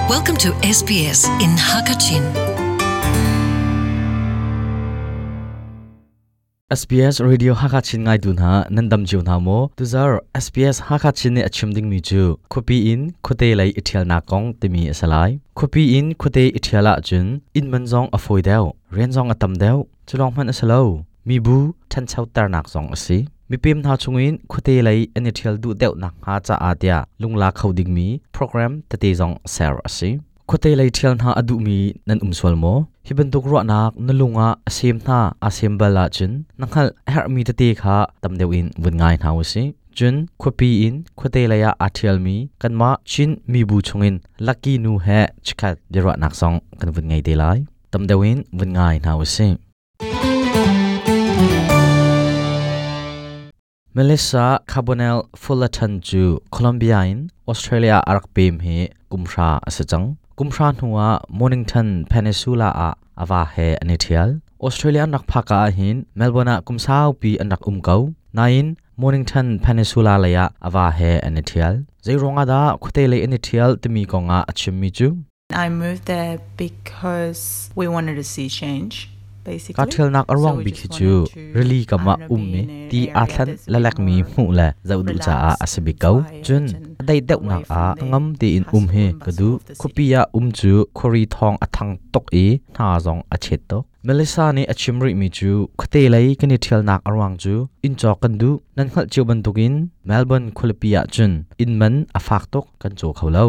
Welcome to SBS in Hakachin. SBS Radio Hakachin ngai tu hna nan dam cio hna maw? Tuzar SBS Hakachin nih a chim dingmi cu khuapi in khuate lei i ṭhialnak kong timi a si lai. Khuapi in khuate i ṭhial ahcun inn man zong a fawi deuh, rian zong a tam deuh. Cu lawng hmanh a si lo. Mibu ṭhanchoternak zong a si. Mipem hna chungin khuate lei an i ṭhial duh deuh nakhnga caah tiah lungla kho dingmi program tete zong ser a si. Khuate lei ṭhial hna a duhmi nan um sual maw? Hi bantuk ruahnak na lung ah a sem hna aa sem bal ahcun na hngalh a herhmi tete kha tam deuh in vun ngai hna u sih. Cun khuapi in khuate lei ah aa ṭhialmi kanmah Chin mibu chungin Lucky nu he chikkhat biaruahnak zong kan vun ngei te lai. Tam deuh in vun ngai hna u sih. Melissa Carbonell Fullerton cu Colombia in Australia a rak pem hi kumhra a si cang. Kumhra hnuah Mornington Peninsula ah a va he an i ṭhial. Australia an rak phak ah hin Melbourne ah kum saupi an rak um ko. Nain Mornington Peninsula lei ah a va he an i ṭhial. Zeiruang ah dah khuate lei an i ṭhial timi kong ah a chimmi cu I moved there because we wanted to see change. Kaa ṭhialnak a ruang bik hi cu rili kam ah ummi ti aa thlen lalekmi hmuh le zoh duh caah a si bik ko. Cun a daih deuhnak ah ngam tein um hi ka duh. Khuapi ah um cu khuari thawng a thang tuk i hna zong a chet tuk. Melissa nih a chim rihmi cu khuate lei kan i ṭhialnak a ruang cu inn cawk kan duh. Nan hngalh cio bantukin Melbourne khualipi ah cun inn man a fak tuk kan caw kho lo.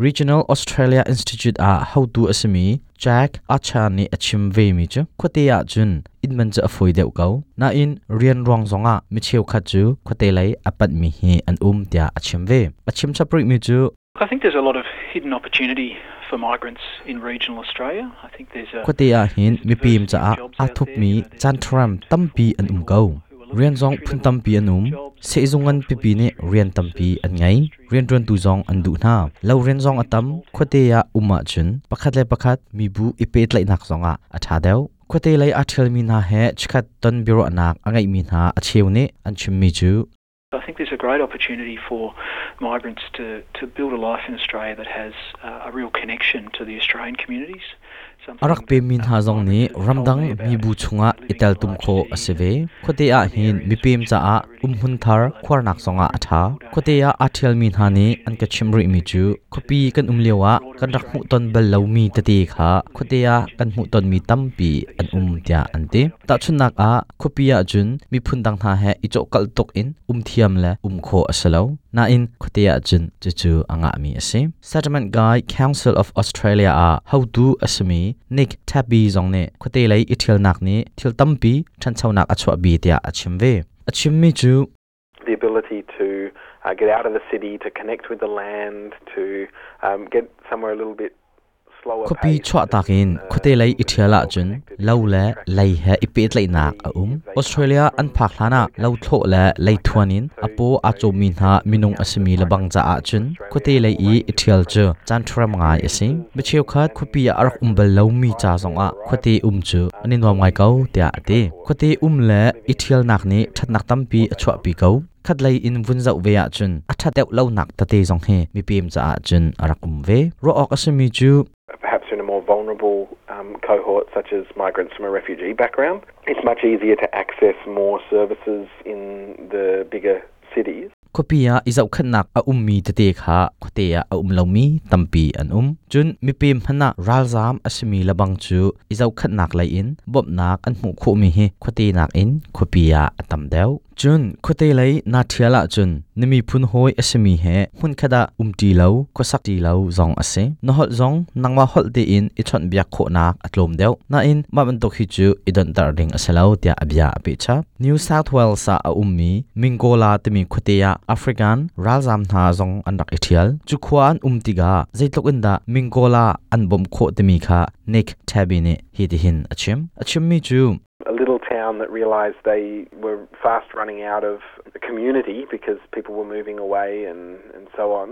Regional Australia Institute ah hotu a simi Jack Archer nih a chim vemi cu khuate ah cun inn man cu a fawi deuh ko. Nain rian ruang zongah mi cheukhat cu khuate lei a panhmi hi an um tiah a chim ve. A chim chap rihmi cu I think there's a lot of hidden opportunity for migrants in regional Australia. I think there's a Khuate ah hin mipim caah aa thupmi caan tampi an um ko. Rian zong phun tampi an um. Sehzung ngan pipi nih rian tampi an ngei. Rianṭuantu zong an duh hna. Lo rian zong a tam. Khuate ah um ahcun pakhat le pakhat mibu i pehtlaihnak zongah a ṭha deuh. Khuate lei aa ṭhialmi hna he chikkhat ton biaruahnak a ngeihmi hna a cheu nih an chimmi cu I think there's a great opportunity for migrants to build a life in Australia that has a real connection to the Australian communities. A rak pemmi hna zong nih ramdang mibu chungah i teltum khawh a si ve. Khuate ah hin mipem caah umhmun thar khuarnak zongah a ṭha. Khuate ah aa ṭhialmi hna nih an ka chimh rihmi cu khuapi kan um lioah kan rak hmuhton bal lomi tete kha khuate ah kan hmuhtonmi tampi an um tiah an ti. Tahchunhnak ah khuapi ahcun miphun dang hna he i cawhkalh tuk in um thiam le um khawh a si lo. Nain khuate ahcun cucu a ngahmi a si. Settlement Guide Council of Australia ah hotu a simi Nick Tabby zong nih khuate lei i ṭhialnak nih thil tampi ṭhanchonak a chuahpi tiah a chim ve. A chimmi cu the ability to get out of the city, to connect with the land, to get somewhere a little bit Khuapi chuahtak in khuate lei i ṭhial ahcun lo le lei he i pehtlaihnak a um. Australia an phak hlanah lothlawh le leithuan in a paw aa cawmmi hna minung a simi lebang caah cun khuate lei i i ṭhial cu caanṭharam ngai a si. Mi cheukhat khuapi ah a rak um bal lomi ca zongah khuate um cu an i nuam ngai ko tiah a ti. Khuate um le i ṭhialnak nih ṭhatnak tampi a chuahpi ko. Khatlei in vun zoh ve ahcun a ṭhat deuh lonak tete zong hi mipem caah cun a rak um ve. Ruah awk a simi cu perhaps in a more vulnerable cohort such as migrants from a refugee background, it's much easier to access more services in the bigger cities. Khuapi ah i zohkhenhnak a ummi tete kha khuate ah a um lomi tampi an um. Cun mipem hmanh ah ralzaam a simi lebang cu i zohkhenhnak lei in bawmhnak an hmuh khawhmi hi khuate nakin khuapi ah a tam deuh. Cun khuate lei naa ṭhial ahcun na miphun hawi a simi he hmunkhat ah umṭi lo, khuasakṭi lo zong a si. Na holh zong nangmah holh tein i chawnhbiak khawhnak a tlawm deuh. Nain mah bantuk hi cu i donhter ding a si lo tiah a bia a peh chap. New South Wales ah a ummi Mingola timi khuate ah African ralzaam hna zong an rak i ṭhial. Cu khua an um tikah zeitluk in dah Mingola an bawmh khawh timi kha Nick Tabby nih hitihin a chim. A chimmi cu a little town that realised they were fast running out of the community because people were moving away and so on.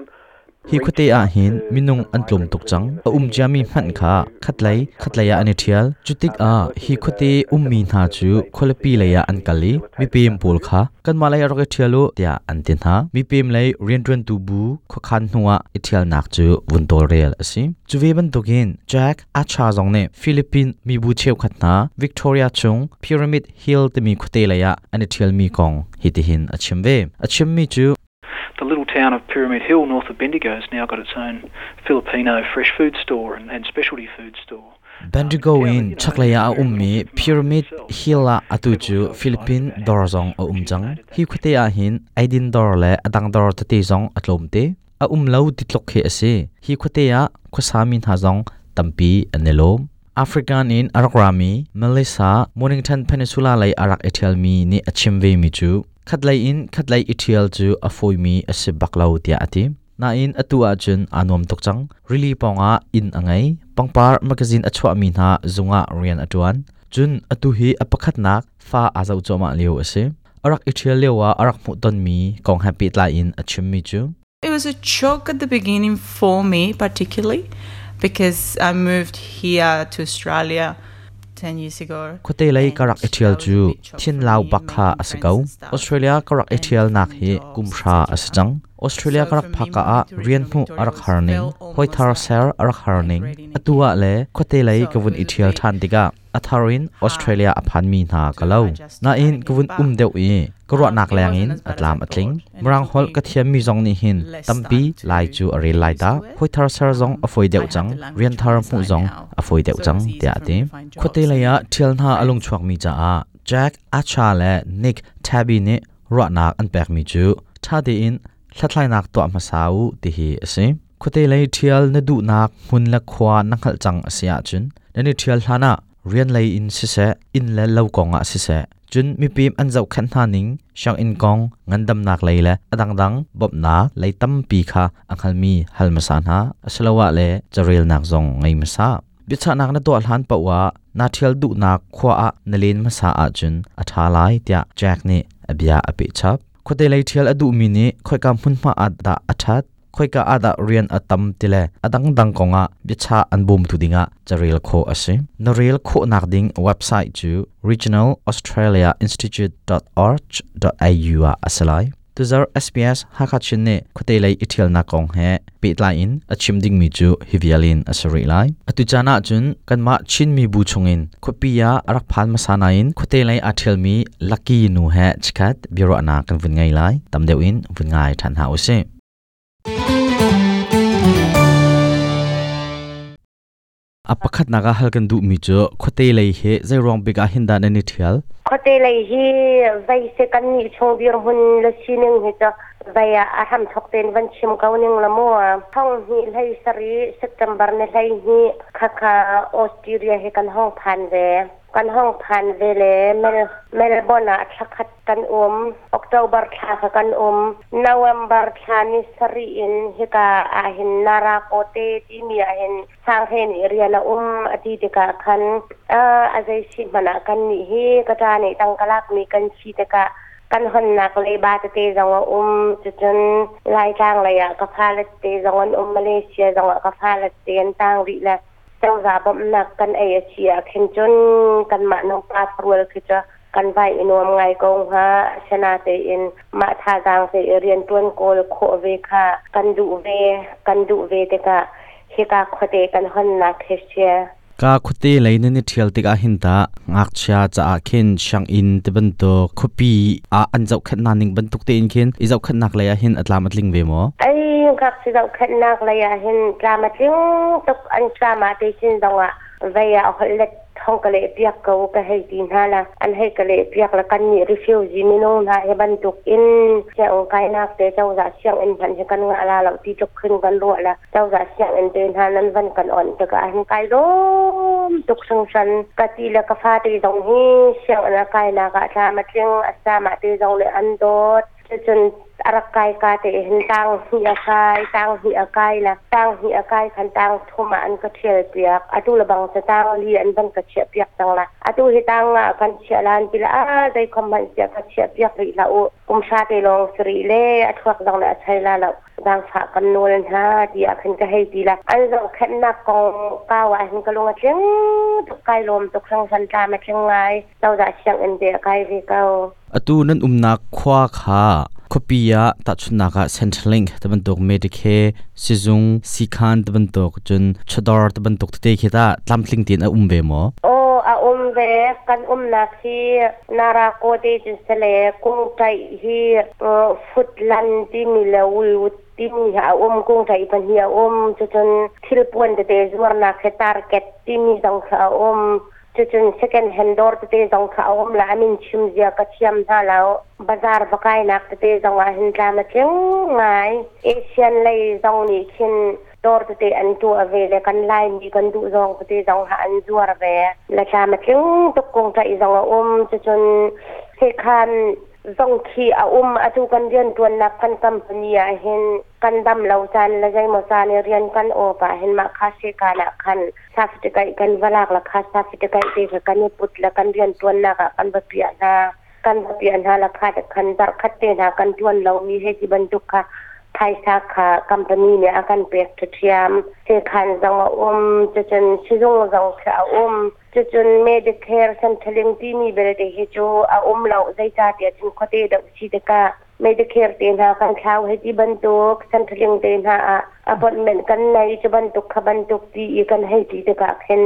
Hi khuate ah hin minung an tlawm tuk cang. A um ciami hmanh kha khatlei khatlei ah an i ṭhial. Cutikah hi khuate ummi hna cu khualipi lei ah an kal i mipem pawl kha kanmah lei ah rak i ṭhial u tiah an ti hna. Mipem lei rianṭuantu bu khuakhan hnuah i ṭhialnak cu vun tawlrel a si. Cu ve bantukin Jack Acha zong nih Philippine mibu cheukhat hna Victoria chung Pyramid Hill timi khuate lei ah an i ṭhialmi kong hitihin a chim ve. A chimmi cu The little town of Pyramid Hill north of Bendigo has now got its own Filipino fresh food store and specialty food store. Bendigo in chaklei ah a ummi Pyramid Hill ah atu cu Philippine dawr zong a um cang. Hi khuate ah hin eidin dawr le a dang dawr tete zong a tlawm te. A um lo ti tluk khi a si. Hi khuate ah khuasami hna zong tampi an i lawm. African in a rak rami Melissa Mornington Peninsula lei a rak i ṭhialmi nih a chim vemi cu Khatlei in khatlei i ṭhial cu a fawimi a si bak lo tiah a ti. Nain atu ahcun aa nuam tuk cang. Rili pawngah inn a ngei. Pangpar magazine a chuahmi hna zung ah rian a ṭuan. Cun atu hi a pakhatnak fa aa zoh cuahmah lio a si. A rak i ṭhial lioah a rak hmuhtonmi kong he pehtlai in a chimmi cu It was a shock at the beginning for me particularly because I moved here to Australia 10 years ago. Khuate lei ka rak i ṭhial cu thinlau bak kha a si ko. Australia ka rak i ṭhialnak hi kum hra a si cang. Australia ka rak phak ka ah rian hmuh a rak har ning, hawi thar ser a rak har ning. Atu ah le khuate lei ka vun i ṭhial ṭhan tikah a thar in Australia a phanmi hna ka lo. Nain ka vun um deuh i ka ruahnak leng in a tlam a tling. Mirang holh ka thiammi zong nih hin tampi lai cu a rel lai ta. Hawi thar ser zong a fawi deuh cang. Rian thar hmuh zong a fawi deuh cang tiah a ti. Khuate lei ah ṭhial hna a lungchuakmi caah Jack Acha le Nick Tabby nih ruahnak an pekmi cu ṭha tein hlathlainak tuah hmasa u ti hi a si. Khuate lei ṭhial na duhnak hmun le khua na hngalh cang a si ahcun nan i ṭhial hlanah rian lei in siseh, inn le lo kong ah siseh, cun mipim an zohkhenh hna ning, sianginn kong, ngandamnak lei le a dangdang bawmhnak lei tampi kha a hngalmi hal hmasa hna, asiloah le carelnak zong ngei hmasa. Biachahnak na tuah hlan paoh ah naa ṭhial duhnak khua ah na len hmasa ahcun a ṭha lai tiah Jack nih a bia a peh chap. Khuate lei ṭhial a duhmi nih khoika hmunhma ah dah a ṭhat, khoika ah dah rian a tam ti le a dangdang kongah biachah an bawmtu dingah carel khawh a si. Na rel khawhnak ding website cu regionalaustraliainstitute.org.au ah a si lai. Tuzarh SBS Hakha Chin nih khuate lei i ṭhialnak kong he pehtlai in a chim dingmi cu hi vial in a si rih lai. Atu caan ah cun kanmah Chin mibu chungin khuapi ah a rak phan hmasa nain khuate lei aa ṭhialmi Lucky nu he chikkhat biaruahnak kan vun ngei lai. Tam deuh in vun ngai ṭhan hna usih. A pakhatnak ah hal kan duhmi cu khuate lei hi zeiruang bik ah hin dah nan i ṭhial? Khuate lei hi vei se kan nih chung dirhmun le sining hi cu vei ah a hramthok tein van chim ko ning la mu. Thong hnih hlei sarih September ni 12 khakha Australia hi kan hong phan ve. Kan hong phan ve le Melbourne ah thlakhat kan um. October thla kha kan um. November thla ni sarih in hika ahhin Narakote timi ahhin Sanghe nih rian a um a ti tikah khan a zei si hmanh ah kan nih hi ka ṭa nih tangka lakmi kan si tikah kan honnak leiba tete zong a um. Cucun Laitlang lei ah ka fale tete zong an um. Malaysia zong ah ka fale tete an tang rih le cozah bawmhnak kan ei a si ah khin cun kanmah nupa rual khi cu kan vai i nuam ngai ko hnga. Asinatein mah thazaang te i rianṭuan kawl khawh ve kha kan duh ve. Kan duh ve tikah hika khuate kan honnak hi si. Ka khuate lei nan i ṭhial tikah hin tah ngakchia caah khin sianginn ti bantuk khuapi ah an zohkhenhnak ning bantuk tein khin i zohkhenhnak lei ah hin a tlam a tling ve maw? Ai ngakchia zohkhenhnak lei ah hin tlam a tling tuk an tlam ah te chin zongah vei ah holh let thong ka leh piak ko ka hei ti hna la an hei ka leh piak la kan nih refugee minung hna hi bantuk in sianginn kainak te cozah sianginn hmanh hi kan ngah la lo ti tluk khin kan ruah la cozah sianginn te hna nan van kan on tikah hin kai lawm tuk hringhran ka ti le ka fate zong hi sianginn a kainak ah thla ma tling a sama te zong le an dawt. Cucun Arak kai ka te hin tang hi a kai, tang hi a kai la, tang hi a kai khan tang thum ah an ka thial piak. Atu la bang cha tang li an van ka chia piak tang la. Atu hi tang nga kan chia lan ti la a dei khom man sia ka chia piak ri la u. Kum sha te long sri le a thuak dong le a chai la lo. Zang fa kan nawl hna ti ah khin ka hei ti la. An zong khennak kong kau ah hin ka lung a tling tuk, kai lawm tuk hrang san tla ma tling ngai. Cozah sianginn te a kai ve ko. Atu nan umnak khua kha khuapi ah tahchunhnak ah Centrelink ti bantuk, Medicare sizung siikhan ti bantuk, cun chawdawr ti bantuk tete khi tah tlamtling tein a um ve maw? Aw, a um ve. Kan umnak hi Narako te cun sale kungṭaih hi Futlan timi le Woolwood timi hi a um, kungṭaih pahnih a um. Cucun thilpuan tete zuarnak hi Target timi zong kha a um. Cucun second hand dawr tete zong kha a um la, a min chim zia ka thiam hna lo. Bazar va kainak tete zong ah hin tlam a tling ngai. Asian lei zong nih khin dawr tete an tuah ve le kan Laimi kan duh zawng tete zong ha an zuar ve. Le tlam a tling tuk, kungṭaih zong a um. Cucun sekhan zong khi a um. Atu kan rianṭuannak kan company ah hin kan dam lo caan le zeimaw caan i rian kan awp ah hin mah kha sekan ah khan certificate kan va lak la, kha certificate te kha kan i put le kan rian ṭuannak ah kan va piah hna, kan va piah hna la, kha te khan zarh khat te hna kan ṭuan lomi hei ti bantuk kha phaisa kha company nih a kan pek ṭhiam. Sekhan zong a um, cucun sizung zong khi a um. Cucun Medicare Centrelink timi belte hi cu a um lo, zeicahtiah cun khuate deuh si tikah Medicare te hna kan thlau hei ti bantuk, Centrelink te hna ah appointment kan nei cu bantuk kha bantuk ti i kan hei ti tikah khin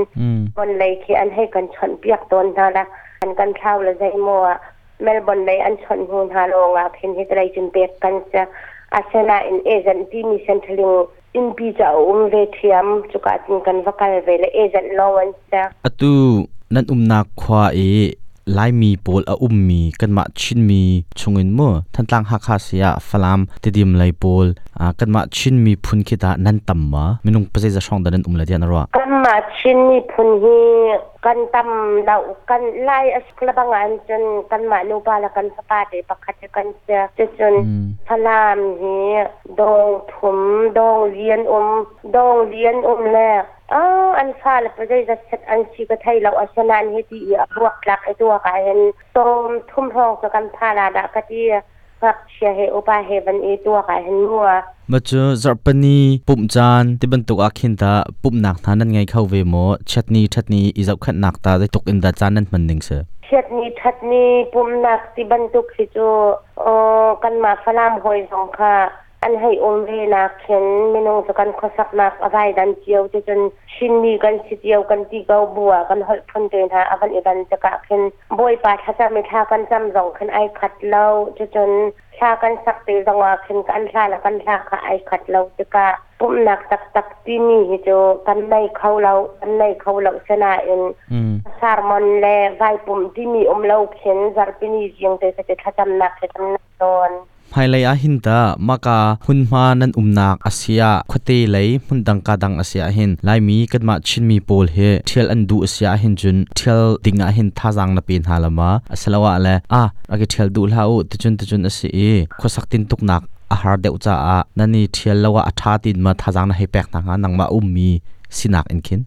bon lei khi an hei kan chawnh piak tawn hna la, an kan thlau le zeimaw ah Melbourne lei an chawnh hnu hna lawng ah khin hi lei cun pek kan si. Asinain agent timi Centrelink innpi cu a um ve ṭhiam, cuka cun kan va kal ve le agent lawng an si. Atu nan umnak khua i Laimi pawl a ummi kanmah Chinmi chungin mu Thantlang, Hakha si ah Falam, Tidim lei pawl kanmah Chin miphun khi tah nan tam ma? Minung pazeiza hrawng dah nan um le tiah na ruah? Kanmah Chin miphun hi kan tam lo. Kan Lai a suk lebang ah cun kanmah nupa le kan fapa te pakhat hi kan si. Cucun Falam hi dawng thum, dawng li an um, dawng li an um le an fale pa zeizat set an si ka thei lo. Asinain hiti i a buaktlak i tuak ah hin sawm thum hrawng cu kan pha la dah ka ti, ngakchia he upa he van i tuak ah hin mua. Ma cu zarhpini pumh caan ti bantuk ah khin ta pumhnak hna nan ngei kho ve maw? Chiatni ṭhatni i zohkhenhnak ta zeitluk in dah caan nan hman ning si? Chiatni ṭhatni pumhnak ti bantuk hi cu kanmah Falam hawi zong kha an hei um ve nak khin minung cu kan khuasaknak a vai dan cio te cun Chinmi kan si cio kan ti ko bu ah kan holh phun te hna a van i dan tikah khin Bawipa thlacam i thla kan cam zong khin ai khat lo. Cucun thla kan sak te zong ah khin kan hla le kan hla kha ai khat lo tikah pumhnak taktak timi hi cu kan nei kho lo, kan nei kho lo. Sinain sermon le vai pumh timi um lo khin zarhpini zing te te thlacamnak he kan nei tawn. Hmailei ah hin tah mahka hmunhma nan umnak a si ah, khuate lei hmundang ka dang a si ah hin Laimi kanmah Chinmi pawl hi ṭhial an duh a si ah hin cun ṭhial ding ah hin thazaang na pe hna la ma? Asiloah le ah rak i ṭhial duh hlah u, ticun ticun a si i khuasak tintuknak a har deuh caah nan i ṭhial lo ah a ṭha tiin ma thazaang na hei pek hna hnga, nangmah ummi sinak in khin?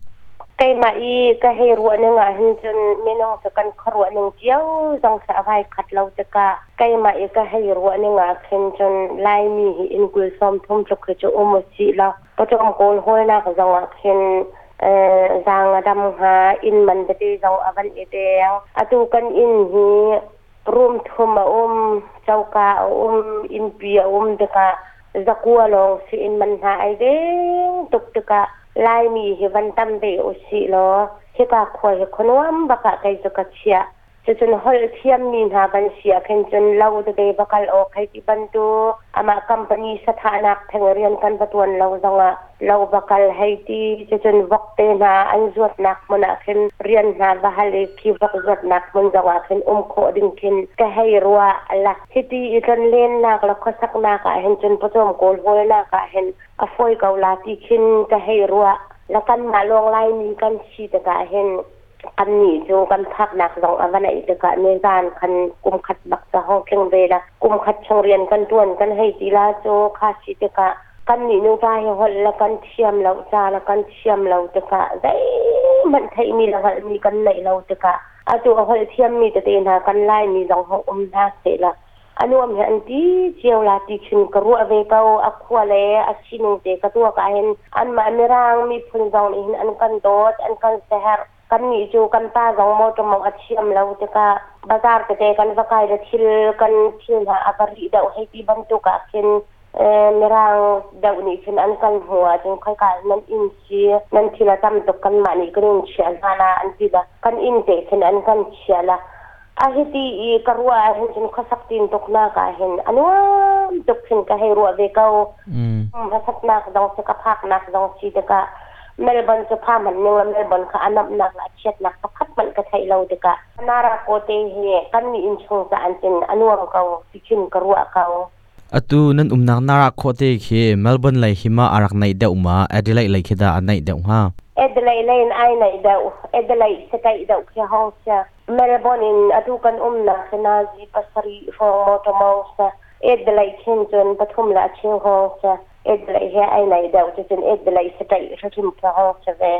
Keimah i ka hei ruah ning ah hin cun minung cu kan khuaruah ning cio zong khi a vai khat lo tikah keimah i ka hei ruah ning ah khin cun Laimi hi inn 30 tluk hi cu um usih law pawcawm kawl hawlnak zong ah khin zaang a dam hnga. Inn man tete zong a van i deng. Atu kan inn hi room thum a um, coka a um, innpi a um tikah 900 lawng si inn man hna ai deng tuk tikah Laimi hi van tam ve usih law hika khua hi khuanuam bak ah kei cu ka chiah. Cucun holh thiammi hna kan si ah khin cun lo tete va kal awk hei ti bantuk, amah company sathahnak theng rian kan va tuan lo zongah lo va kal hei ti, cucun vok te hna an zuatnak hmun ah khin rian hna va hal i khi vok zuatnak hmun zongah khin um khawh ding khin ka hei ruah la. Hiti i tlonlennak le khuasaknak ah hin cun pawcawm kawl hawlnak ah hin a fawi ko la ti khin ka hei ruah la. Kanmah lawng Laimi kan si tikah hin. Kannih cu kan phaknak zong a va naih tikah nizan khan kum khat bak ca hong tling ve la. Kum khat chung rian kan ṭuan kan hei ti la cu kha si tikah kannih nuva hi holh le kan thiam lo, ca le kan thiam lo tikah zeihmanh theihmi le hngalhmi kan neih lo tikah atu a holh thiammi tete hna kan Laimi zong hong um hna seh la a nuam hi an ti cio la ti khin ka ruah ve ko. A khua le a sining te ka tuak ah hin anmah Mirang miphun zong nih hin an kan dawt, an kan seherh. Kannih cu kan pa zong motor mong a thiam lo tikah bazar tete kan va kai le thil kan thil hna a va rih deuh hei ti bantuk ah khin Mirang deuh nih khin an kan hmuh ahcun khoika nan inn si, nan thil a tam tuk, kanmah nih kan in chiah hna la an ti la, kan inn te khin an kan chiah la. A hiti i ka ruah ahhin cun khuasak tin tuknak ah hin a nuam tuk khin ka hei ruah ve ko. Hmasatnak zong si, ka phaknak zong si tikah Melbourne cu pha hmanh ning la Melbourne kha a namhnak le a chiatnak pakhat hmanh ka theih lo tikah Nara te hi kan mi innchung ca an cun a nuam ko ti khin ka ruah ko. Atu nan umnak Nara khuate khi Melbourne lei hi ma a rak naih deuh ma Adelaide lei khi dah a naih deuh hnga? Adelaide lei in ai naih deuh. Adelaide sakaih deuh khi hong sia. Melbourne in atu kan umnak hi nazi 7 hrawng motor mong sia. Adelaide khin cun pathum le a cheu hong sia. Adelaide he ai naih deuh cucun Adelaide sakaih hrim khi hong sia ve.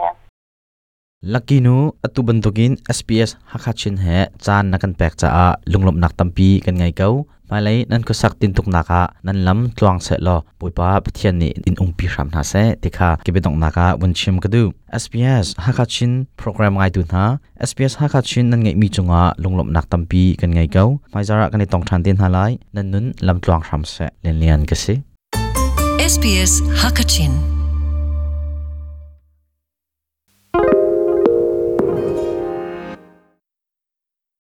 Lucky nu, atu bantukin SBS Hakha Chin he caan na kan pek caah lunglawmhnak tampi kan ngei ko. Hmailei nan khuasak tintuknak ah nan lam tluang seh law Bawipa Pathian nih in umpi hram hna seh ti kha ka biadonghnak ah vun chim ka duh. SBS Hakha Chin program ngaitu hna, SBS Hakha Chin nan ngeihmi cungah lunglawmhnak tampi kan ngei ko. Hmaizar ah kan i tong ṭhan te hna lai. Nan nun lam tluang hram seh. Lianlian ka si. SBS Hakachin.